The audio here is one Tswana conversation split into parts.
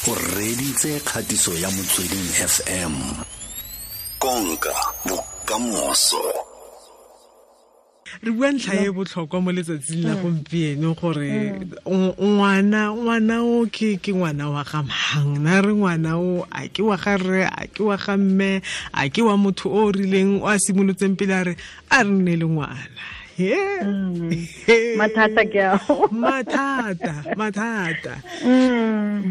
O reditse kgatiso ya Motsweding FM. Konka bokamoso. Re bua ntlha e botlhokwa mo letsatsing la gompieno gore ngwana o ke ngwana wa ga mang, na re ngwana o a ke wa ga rre, a ke wa ga mme, a ke wa motho o rileng o a simolotseng pele a re a re nne le ngwana. Mathata ke ao. Mathata.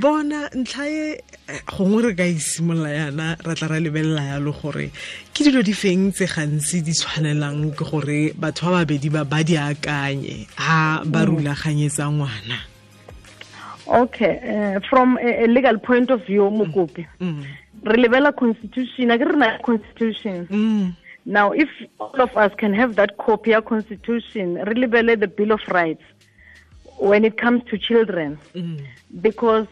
Bona ntlha e gongwe re ka isimolola yana ra tla ra lebelela yalo gore ke dilo di feng tse gantsi di tshwanelang ke gore batho ba babedi ba di akanye ha ba rulaganyetsa ngwana. Okay, from a legal point of view, Mokopi, re lebela constitution, a ke re na constitution. Now, if all of us can have that copy of constitution, really lebele the Bill of Rights when it comes to children, because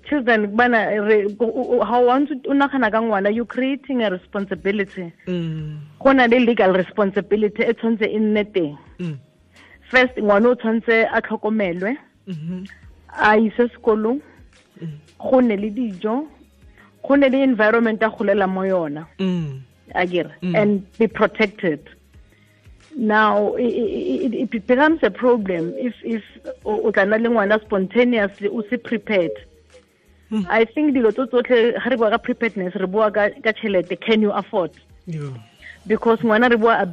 children, how want to you're creating a responsibility. Go na le legal responsibility e tshwanetse e nne teng. First, ngwana o tshwanetse a tlhokomelwe, a ise sekolong, go nne le dijo, go nne le environment a golela mo yona. Agir, and be protected. Now it becomes a problem if o tla nna le ngwana spontaneously o se prepared. I think dilo tso tsotlhe ga re bua ka preparedness, re bua ka tšhelete, can you afford? Yeah. Because ngwana re bua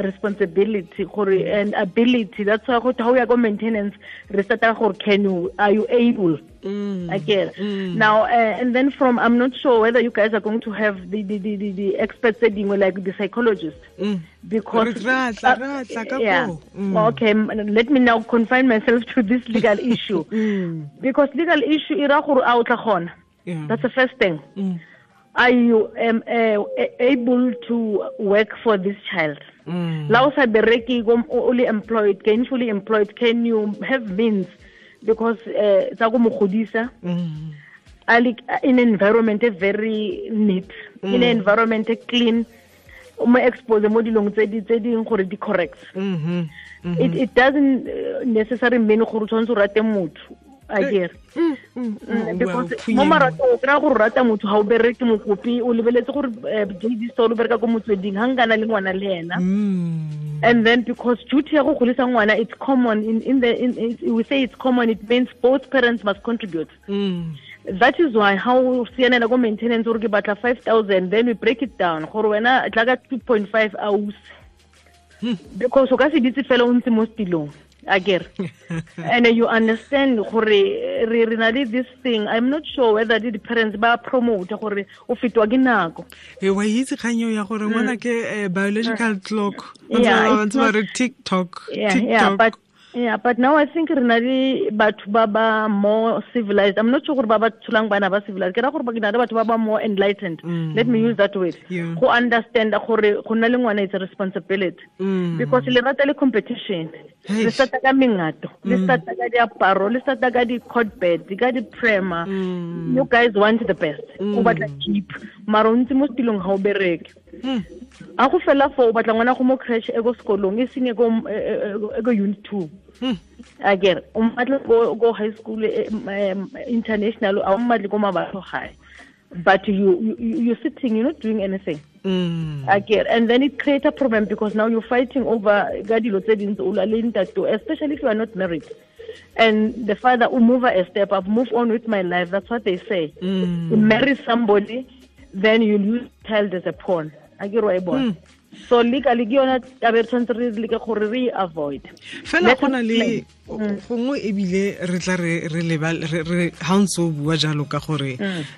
responsibility gore and ability. That's why go ha o ya go maintenance re starta gore can you, are you able? Again. Now and then from, I'm not sure whether you guys are going to have the experts like the psychologist, because yeah. Okay, let me now confine myself to this legal issue. Because legal issue e ra gore a o tla kgona. That's the first thing. Are you able to work for this child? La o sa bereke, only employed, gainfully employed, can you have means? Because tsa go mo godisa in environment very neat, in environment clean, o mo expose mo dilong tse di gore di correct. It doesn't necessarily mean gore o tshwanetse o rate motho. I because mo marato o kry-a gore rata motho ga o bereke mokopi, o lebeletse gore JD Store o bereka ko Motsweding, ga nkana le ngwana le ena. And then because duty ya go godisa ngwana, it's common in we say it's common, it means both parents must contribute. That is why how sianela go maintenance gore ke batla 5,000, then we break it down gore wena tla ka 2.5 aus, because o ka se ditse fela o ntse mo setilong. Again, and you understand gore re na le this thing. I'm not sure whether the parents ba promote gore o fetwa ke nako. E wa itse kganyo ya gore ngwana ke biological clock. Ba re TikTok. Yeah, but now I think re na le batho ba ba more civilized. I'm not sure gore ba ba tsholang bana ba civilized. Ke ra gore ba ke na le batho ba ba more enlightened. Let me use that word. Go understand gore go nna le ngwana is a responsibility. Because le rata le competition. Le starta ka mengato, le starta ka diaparo, le starta ka di-cot bed, ka di-prema. You guys want the best. O batla cheap. Mara o ntse mo setilong ga o bereke. A go fela fo o batla ngwana go mo creche e go sekolong, e seng e go unit 2. Again, o mmatla go high school international, a o mmatle ko Mabatho High. But you're sitting, you're not doing anything. Again, and then it creates a problem because now you're fighting over ka dilo tse dintsi, o lwa le ntate, especially if you are not married. And the father will move a step up, move on with my life. That's what they say. You marry somebody, then you lose child as a pawn. So legally ke yona taba e tshwanetse re leke gore re avoid. Fela go na le gongwe ebile re tla re leba re ha ntse o bua jalo ka gore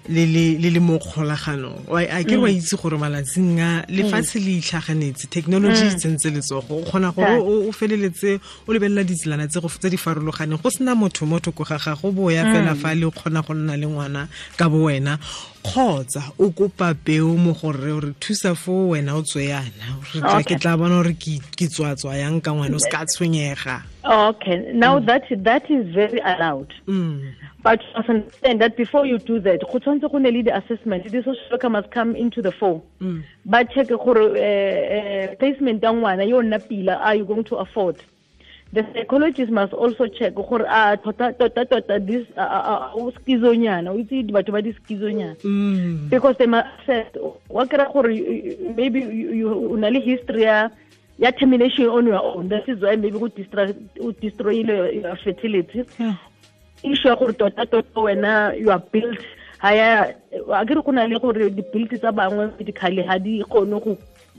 le le mo kgolaganong. A ke wa itse gore malatsing a lefatshe le itlhaganetse, technology e tsentse letsogo, o kgona gore o feleletse o lebelela ditselana tse di farologaneng, go sena motho mo thoko ga gago, bo ya fela fa le o kgona go nna le ngwana ka bo wena, kgotsa o kopa peo mo gore re thusa fo wena o tswe yana. Ke tla bona gore ke tswa yang ka ngwana o se ka tshwenyega. Okay, now that is very allowed. But you must understand that before you do that, go tshwanetse go ne le the assessment. The social worker must come into the fore. Ba check gore placement ya ngwana yo nna pila, are you going to afford? The psychologist must also check gore a tota tota this o schizonyana, o itse batho ba di schizonyana, because they must assess wa kry gore maybe you o na le history ya termination on your own. That is why maybe go destroy your fertility. Issue ya gore tota tota wena you are built ha ya a ke re go na le gore di-built tsa bangwe medically ha di kgone go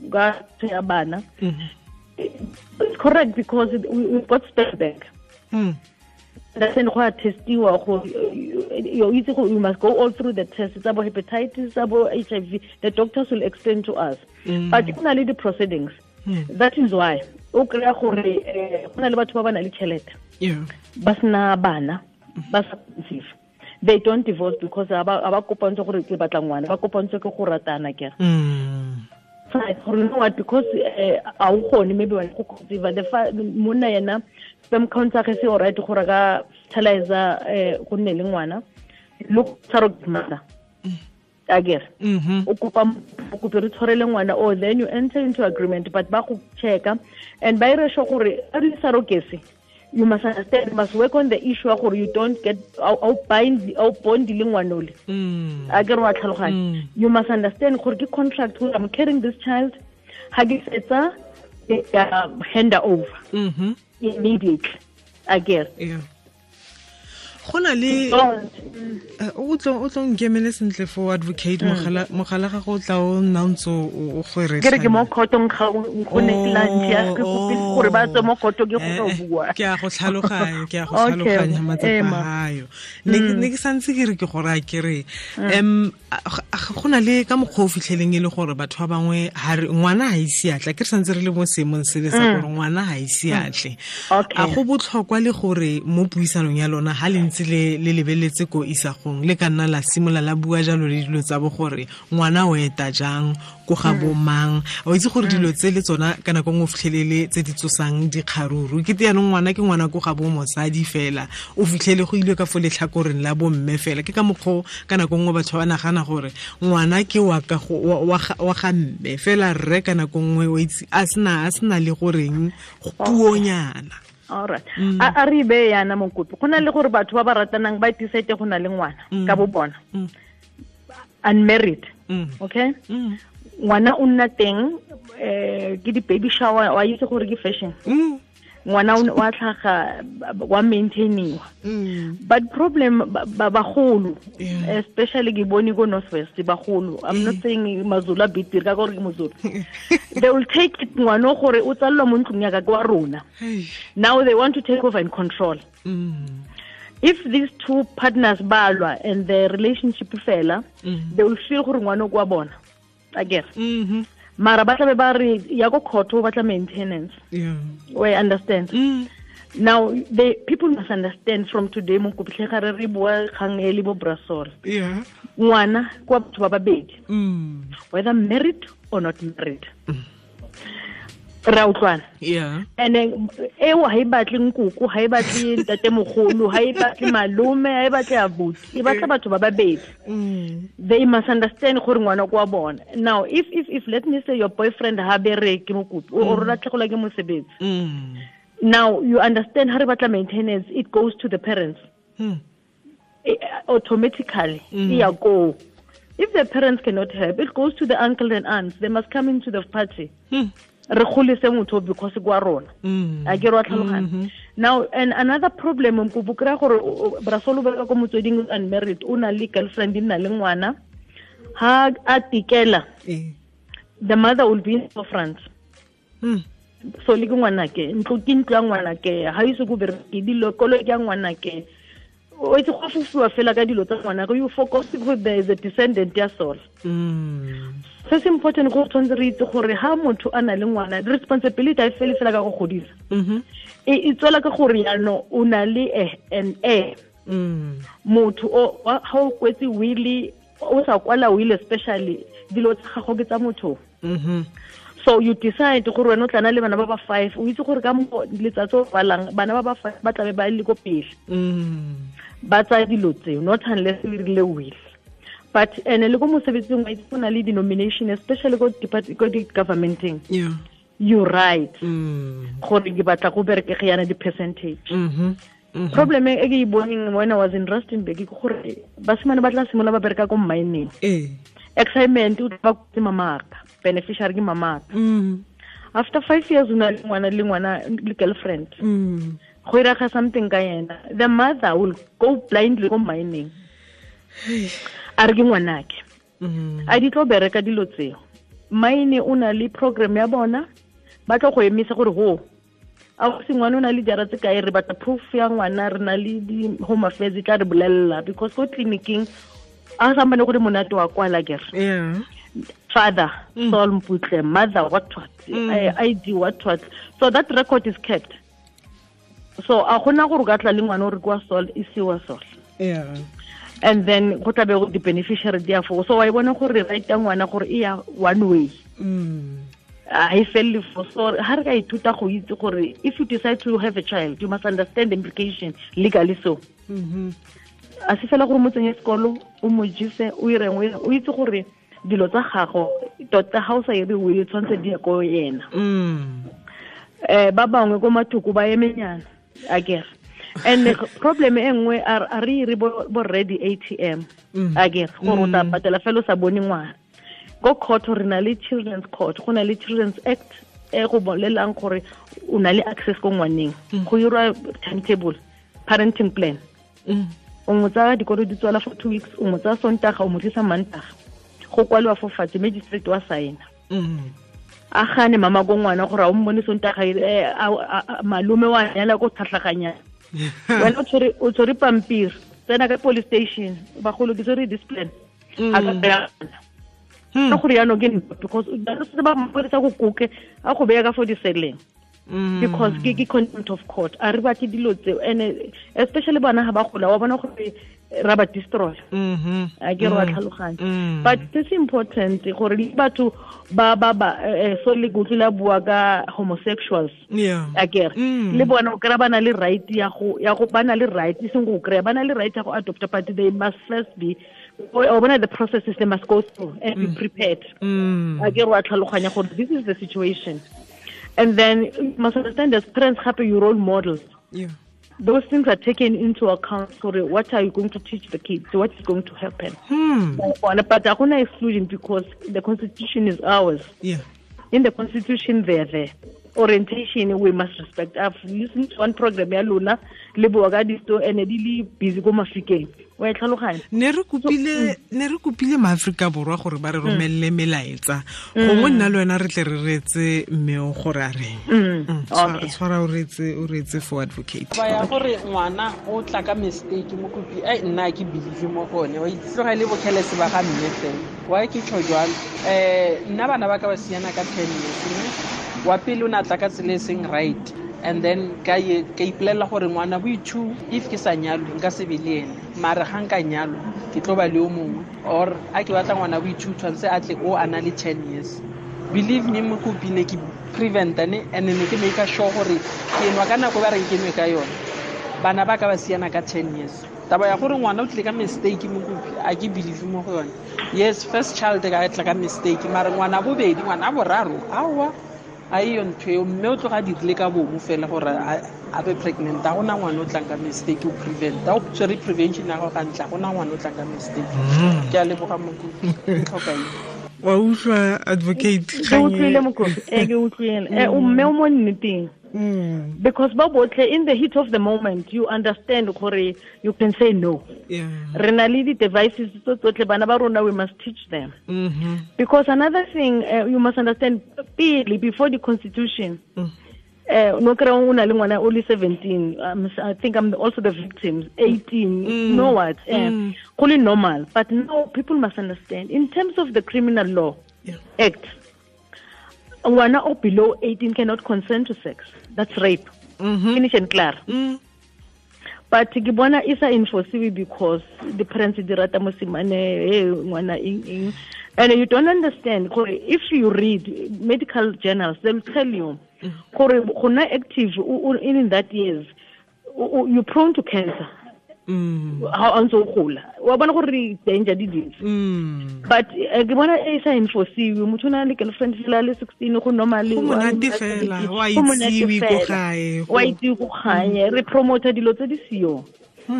ka tshwaya bana. It's correct because we've got step back. That's in go testiwa go you must go all through the tests about hepatitis, about HIV. The doctors will explain to us. But go na le the proceedings. That is why o kry-a gore go na le batho ba ba na le tšhelete. Ba sena bana, ba sa conceive. They don't divorce because ba kopantswe gore ke batla ngwana, ba kopantswe ke go ratana ke. Gore you know what, because a o kgone maybe wa go conceive the monna yena sperm count tsa gagwe se alright gore ka fertilizer go nne le ngwana, look surrogate mother. Akere o kopa o kope re tshwarele ngwana, or then you enter into agreement, but ba go checka and ba ire sure gore a re surrogacy, you must understand, you must work on the issue gore you don't get au bind au bond le ngwana ole. Akere wa tlhaloganya. You must understand gore ke contract gore I'm carrying this child, ha ke fetsa hand over immediately. Akere gona le o tlo nkemele sentle for advocate mogala ga go tla o nna ntse o gore ke re ke mo khotong ga go ne lunch ya ke kopile gore ba tswe mo khoto ke go bua. Ke a go tlhaloganya, ke a go tlhaloganya matsapa ayo. Ne ke santse ke re ke gore a ke re go na le ka mokgwa o fitlheleng e le gore batho ba bangwe ha re ngwana ha ise atle, ke re santse re le mo seemong se le sa gore ngwana ha ise atle. A go botlhokwa le gore mo puisanong ya lona ha le ntse le lebeletse ko isagong le ka nna la simola la bua jalo le dilo tsa bo gore ngwana o eta jang ko ga bomang, o itse gore dilo tse le tsona ka nako nngwe o fitlhelele tse di tsosang dikgaruru ke te yanong ngwana ke ngwana ko ga bo mosadi fela o fitlhele go ile ka fo letlhakoreng la bomme fela. Ke ka mokgwa ka nako nngwe batho ba nagana gore ngwana ke wa ka wa ga mme fela rre ka nako nngwe o itse a sena le goreng puonyana. All right. A re be yana mokopi go na le gore batho ba ba ratanang ba decide go na le ngwana ka bo bona unmarried. Okay, ngwana o nna teng ke di baby shower wa itse gore ke fashion, ngwana wa tlhaga wa maintainiwa. But problem bagolo, especially ke bone ko North West bagolo, I'm not saying Mazulu a betere ka gore ke Mozulu, they will take it ngwana gore o tsallwa mo ntlong ya ka kwa rona. Now they want to take over and control. If these two partners balwa and the relationship fela, they will feel gore ngwana kwa bona again. Mara ba tla be ba re ya go court o batla maintenance. We understand. Now the people must understand from today mo kopitlhe ga re bua kgang e le bo Brasol. Ngwana kwa batho ba babedi, whether married or not married. Ra utlwana. And eo ha e batle nkoko, ha e batle ntatemogolo, ha e batle malome, ha e batle abuti, e batla batho ba babedi. They must understand gore ngwana kwa bona. Now if let me say your boyfriend ha bereke mokopi o rona tlhola ke mosebetsi. Now you understand ha re batla maintenance, it goes to the parents. Automatically. Ya go. If the parents cannot help, it goes to the uncle and aunts. They must come into the party. Re golise motho because kwa rona. A ke re wa tlhaloganya. Now and another problem mkopo kra gore Brasolo ba ko motsweding unmarried o na le girlfriend nna le ngwana ha a tikela, the mother will be in front. So le ngwana ke ntlo ke ntlo ya ngwana ke ha ise go bereke dilo kolo ke ya ngwana ke o itse go fufuwa fela ka dilo tsa ngwana go you focus go there is a descendant ya soul. Se se important go tshwanetse re itse gore ha motho a na le ngwana responsibility a fele fela ka go godisa. E tswela ka gore yano o na le an heir. Motho o ha o kwetse will o sa kwala will especially dilo tsa gago ke tsa motho. So you decide gore wena o tla na le bana ba ba 5, o itse gore ka mo letsatsi o balang bana ba ba 5 ba tlabe ba le ko pele. Ba tsaya dilo tseo not unless we rile will. But ene le ko mosebetsing wa itse go na le denomination especially ko department ko di governmenteng. You right. Gore ke batla go bereke ge yana di percentage. Problem e ke e boneng when I was in Rustenburg ke gore basimane ba tla simolola ba bereka ko mining. Excitement o tla ba mamaka, beneficiary ke mamaka. After 5 years o na le ngwana le girlfriend. Go iraga something ka yena. The mother will go blindly go mining. A re ke ngwanake. A di tlo bereka dilo tseo. Mine o na le program ya bona ba tlo go emisa gore ho a go se ngwana o na le jara tse kae, re batla proof ya ngwana, re na le di home affairs tla re bolella, because ko clinicing a sa mbane gore monate wa kwala kere. Father Saul Mputle, mother what ID what, so that record is kept. So a gona gore ka tla le ngwana o re kwa Saul e siwa Saul. And then go tla be go di beneficiary dia fo. So wa bona gore right ya ngwana gore e ya one way. I feel for so ha re ka ithuta go itse gore if you decide to have a child, you must understand the implication legally. So a se fela gore mo tsenye sekolo o mo jise o ireng o itse gore dilo tsa gago tota ha o sa ire o tshwantse di ko yena. Ba bangwe ko mathoko ba emenyana akere. And the problem e nngwe a re re bo ready ATM akere gore o tla patela fela o sa bone ngwana. Go court re na le children's court, go na le Children's Act e go bolelang gore o na le access ko ngwaneng. Go irwa timetable, parenting plan. O mo tsaya dikolo di tswala for 2 weeks, o mo tsaya Sontaga, o mo tlisa Mantaga. Go kwaliwa fo fatshe, magistrate wa saena. A gane mama ko ngwana gore a o mmone Sontaga, malome wa nyala ko tlhatlhaganya. Wena o tshwere pampiri, tsena ka police station, bagolo ke tshwere discipline. A ka beya ka gore jaanong ke because ba mapodisa go koke a go beya ka for diseleng. Because ke contempt of court. A re batle dilo tseo, and especially bana ha ba gola wa bona gore ra ba destroy. A ke re wa tlhaloganya. But it's important gore le batho ba so le go tlila bua ka homosexuals. A ke re le bona o kry ba na le right ya go ba na le right e seng go kry ba na le right ya go adopt, but they must first be or one of the processes they must go through and be prepared. A ke re wa tlhaloganya gore this is the situation. And then you must understand as parents happy your role models. Those things are taken into account. So what are you going to teach the kids? What is going to happen? But I'm not excluding because the constitution is ours. In the constitution, they're there. Orientation we must respect. I've listened to one program ya lona le bua ka disto and di le busy go Mafikeng. Wa e tlhaloganya. Ne re kopile maAfrika Borwa gore ba re romelle melaetsa. Gongwe nna le wena re tle re reetse mme o gore a reng. Tshwara o reetse for advocate. Ba ya gore ngwana o tla ka mistake mo kopi ai nna ke believe mo gone. Wa itse ga le bokhelese ba ga mme fela. Wa ke tjho jwalo. Nna bana ba ka ba siana ka 10 years. Wa pele o na tla ka tsela e seng right, and then ka ipolelela gore ngwana bo two if ke sa nyalwe nka se be le ene, mara ga nka nyalwa ke tlo ba le o mongwe, or a ke batla ngwana bo two tshwanetse a tle o a na le 10 years. Believe me mokopi ne ke preventa ne, and ne ke make sure gore ke nwa ka nako ba reng ke nwe ka yone. Bana ba ka ba siana ka 10 years. Taba ya gore ngwana o tlile ka mistake mokopi a ke believe mo go yone. Yes, first child ka tla ka mistake, mara ngwana bobedi ngwana boraro aowa a iyo ntho eo mme o tloga dirile ka bomo fela gore a be pregnant. A gona ngwana o tlang ka mistake o prevent, o tshwere prevention ya go gantla, gona ngwana o tlang ka mistake. Ke a leboga mokopi, ke tlhoka eng. Wa utlwa advocate? Ke utlwile mokopi, ke utlwile. O mme o mo nneteng. Because ba botlhe in the heat of the moment you understand gore you can say no. Re na le di devices tso tsotlhe bana ba rona, we must teach them. Because another thing you must understand pele before the constitution no kry o na le ngwana o le 17, I think I'm also the victim, 18, you know what, go le normal. But now people must understand in terms of the criminal law act, ngwana o below 18 cannot consent to sex. That's rape. Finish and clear. But ke bona e sa enforciwe because the parents di rata mosimane, hey ngwana eng eng. And you don't understand gore if you read medical journals, they'll tell you gore go nna active in that years you're prone to cancer. Ha o ntse o gola wa bona gore danger di dintsi. But ke bona e sa enforciwe, motho o na le girlfriend fela le 16 go normal, go monate fela, wa itsiwe ko gae, wa itsiwe ko gae. Re promote dilo tse di sio.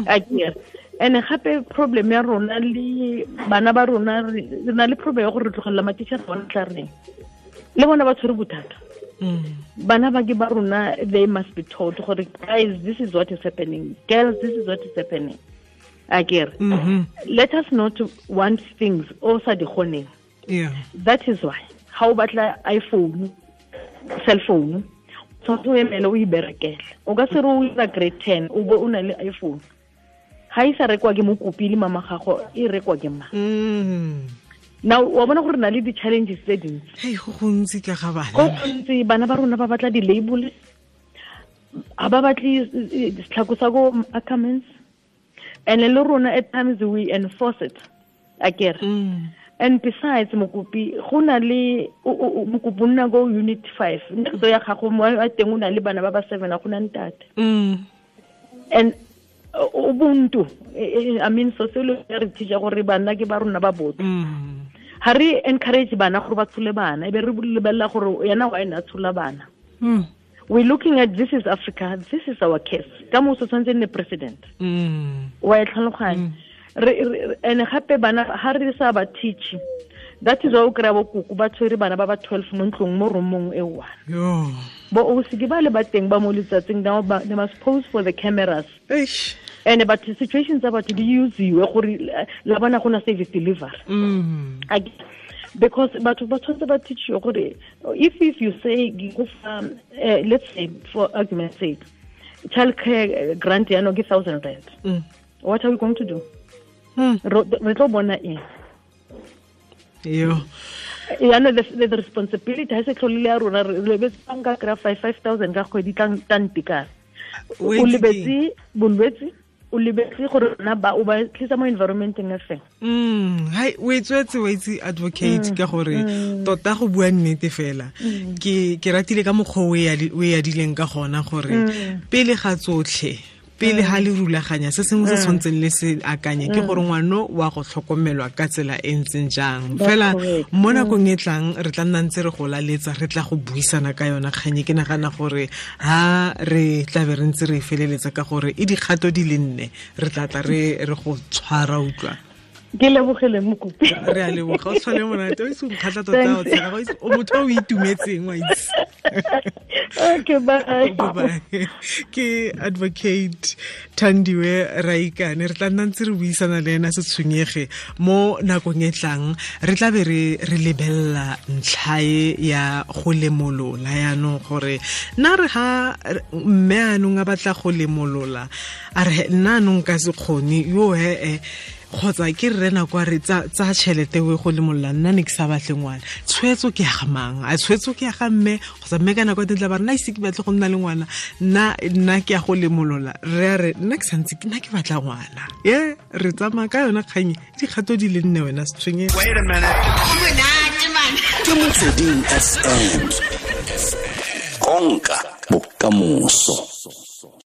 Akere and gape problem ya rona le bana ba rona, re na le problem ya gore re tlogelela matitšhere bona tla reng le bona ba tshwere bothata. Bana ba ke ba rona, they must be told gore guys, this is what is happening, girls, this is what is happening. Akere let us not want things o sa di kgoneng. That is why ha o batla iPhone, cell phone, tshwanetse o emele o iberekele. O ka se re o ira grade 10 o bo o na le iPhone. Ha e sa rekwa ke mokopi le mama gago, e rekwa ke mang? Now wa bona gore na le di-challenges tse dintsi. Hei, go gontsi ka ga bana. Go gontsi, bana ba rona ba batla di-label, ga ba batle setlhako sa ko Ackermans, and le rona at times we enforce it. Akere. And besides mokopi, go na le mokopi o nna ko unit 5, ntlo ya gago mo a teng o na le bana ba ba 7, a go na ntate. And ubuntu, I mean sociology re teacher gore bana ke ba rona ba botho. Ha re encourage bana gore ba tshole bana, e be re lebella gore yena wa ena tshola bana. We're looking at this is Africa, this is our case. Ka mo so tshwantse nne president. Wa e tlhaloganya. And gape bana ha re sa ba teach, that is why o kry-a bo koko ba tshwere bana ba ba 12 mo ntlong mo roomong e one. Bo o se ke ba le ba teng ba mo letsatsing, now they must pose for the cameras. And but the situations tsa batho di usiwe gore la bona go na service delivery. Because batho ba tshwanetse ba teachiwe gore if you say go fa, let's say for argument's sake, child care grant ya no ke 1,000 rand. What are we going to do? Re tlo bona eng? Yo. Yeah, no, the responsibility has tlhole ya rona, re lebetse banka kry 5,000 ka kgwedi tla ntekana. O lebetse bolwetse, o lebetse gore rona ba o ba tlisa mo environmenteng e feng. Hai, o e tswetse wa itse advocate ka gore tota go bua nnete fela. Ke ratile ka mokgwa o e adileng ka gona gore pele ga tsotlhe, pele ha le rulaganya se sengwe se tshwantseng le se akanye ke gore ngwano wa go tlhokomelwa ka tsela e ntseng jang. Fela mo nakong e tlang re tla nna ntse re go laletsa, re tla go buisana ka yona kganye. Ke nagana gore ha re tla be re ntse re feleletsa ka gore e dikgato di le nne, re tla tla re go tshwara utlwa. Ke lebogele mokopi. Re a leboga, o tshwale monate, o itse o nkgatlha tota o tshega, o motho o itumetseng wa itse. Okay, bye. Bye. Ke advocate Thandiwe Raikane, re tla nna ntse re buisana le ena se tshwenyege mo nakong e tlang. Re tla be re lebella ntlha ya go lemolola yaanong gore nna re ha mme anong a batla go lemolola, a re nna anong ka se kgone yo he kgotsa ke rre nako a re tsa tšhelete o e go lemolola, nna ne ke sa batle ngwana. Tshwetso ke ya ga mang? A tshwetso ke ya ga mme kgotsa mme ka nako e tla ba re nna ise ke batle go nna le ngwana, nna ke ya go lemolola. Re a re nna ke santse nna ke batla ngwana. Ye re tsamaya ka yona kgang dikgato di le nne wena se tshwenyege. Wait a minute. Ke Motsweding FM. Konka bokamoso.